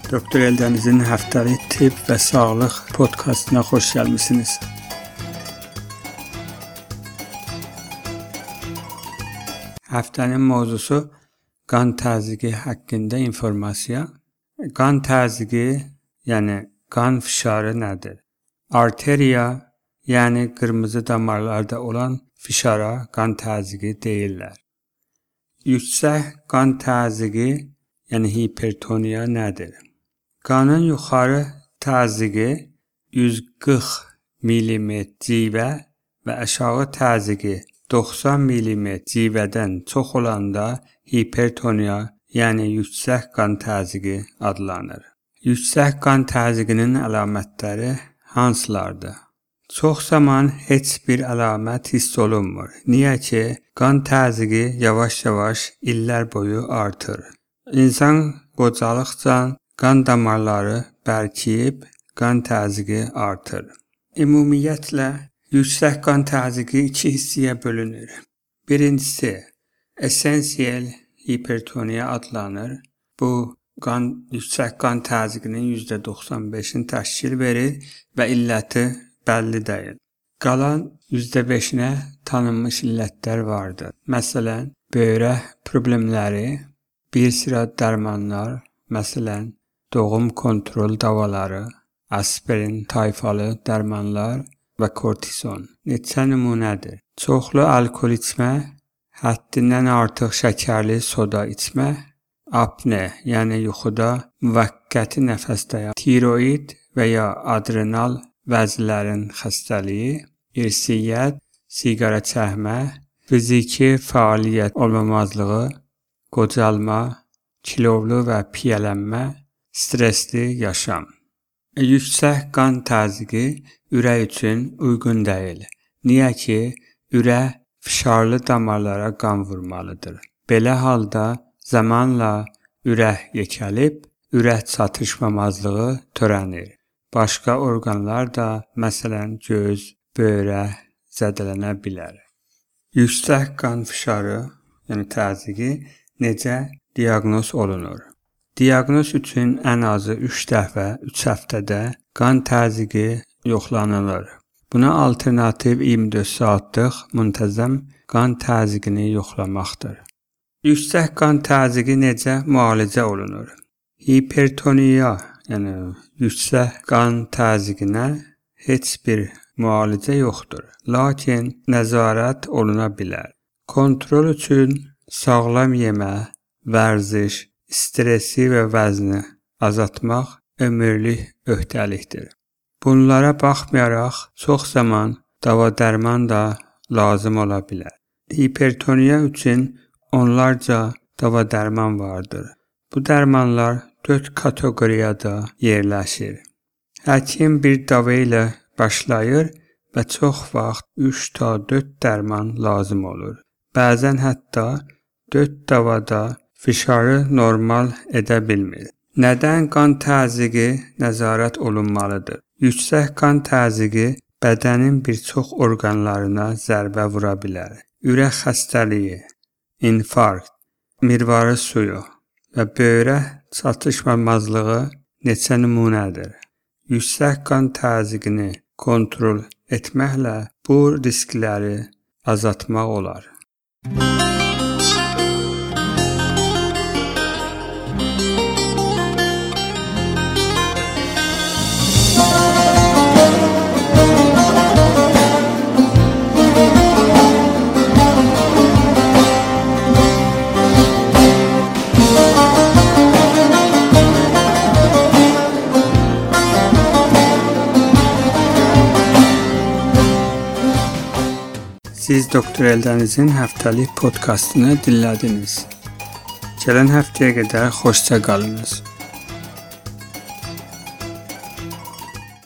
Doktor Eldənizin həftəlik tibb və sağlıq podkastına xoş gəlmisiniz. Həftənin mövzusu qan təzyiqi haqqında informasiya. Qan təzyiqi, yəni qan fişarı nədir? Arteriya, yəni qırmızı damarlarda olan fişara qan təzyiqi deyirlər. Yüksək qan təzyiqi, yəni hipertoniya nədir? Qanın yuxarı təzyiqi 140 mm civə və aşağı təzyiqi 90 mm civədən çox olanda hipertoniya, yəni yüksək qan təzyiqi adlanır. Yüksək qan təzyiqinin əlamətləri hansılardır? Çox zaman heç bir əlamət hiss olunmur. Niyə ki, qan təzyiqi yavaş-yavaş illər boyu artır. İnsan qocalıqca qan damarları bərkiyib, qan təzyiqi artır. Ümumiyyətlə, yüksək qan təzyiqi iki hissəyə bölünür. Birincisi, esensial hipertoniya adlanır. Bu, yüksək qan təzyiqinin %95'ini təşkil verir və illəti bəlli deyil. Qalan %5'inə tanınmış illətlər vardır. Məsələn, böyrək problemləri, bir sıra dərmanlar, məsələn, doğum kontrol davaları, aspirin tayfalı dərmanlar və kortizon. Neçə nümunədir? Çoxlu alkol içmə, həddindən artıq şəkərli soda içmə, apne, yəni yuxuda müvəqqəti nəfəs dayanma, tiroid və ya adrenal vəzlərin xəstəliyi, irsiyyət, siqara çəkmə, fiziki fəaliyyət olmamazlığı, qocalma, kilovlu və piyələnmə, stresli yaşam. Yüksək qan təzyiqi ürək üçün uyğun deyil. Niyə ki, ürək fişarlı damarlara qan vurmalıdır. Belə halda zamanla ürək yekəlib, ürək çatışmamazlığı törənir. Başqa orqanlar da, məsələn, göz, böyrək zədələnə bilər. Yüksək qan fişarı, yəni təzyiqi necə diaqnoz olunur? Diaqnoz üçün ən azı 3 dəfə 3 həftədə qan təzyiqi yoxlanılır. Buna alternativ 24 saatlıq müntəzəm qan təzyiqini yoxlamaqdır. Yüksək qan təzyiqi necə müalicə olunur? Hipertoniya, yəni yüksək qan təzyiqinə heç bir müalicə yoxdur. Lakin nəzarət oluna bilər. Kontrol üçün sağlam yemək, vərziş, stresi və vəzni azaltmaq ömürlük öhdəlikdir. Bunlara baxmayaraq, çox zaman dava-dərman da lazım ola bilər. Hipertoniya üçün onlarca dava-dərman vardır. Bu dərmanlar 4 kateqoriyada yerləşir. Həkim bir dava ilə başlayır və çox vaxt 3 ta 4 dərman lazım olur. Bəzən hətta 4 davada fişarı normal edə bilmir. Nədən qan təzyiqi nəzarət olunmalıdır? Yüksək qan təzyiqi bədənin bir çox orqanlarına zərbə vura bilər. Ürək xəstəliyi, infarkt, mirvarı suyu və böyrək çatışmamazlığı neçə nümunədir. Yüksək qan təzyiqini kontrol etməklə bu riskləri azaltmaq olar. Siz Doktor Eldənizin həftəlik podkastını dinlədiniz. Gələn həftəyə qədər xoşça qalınız.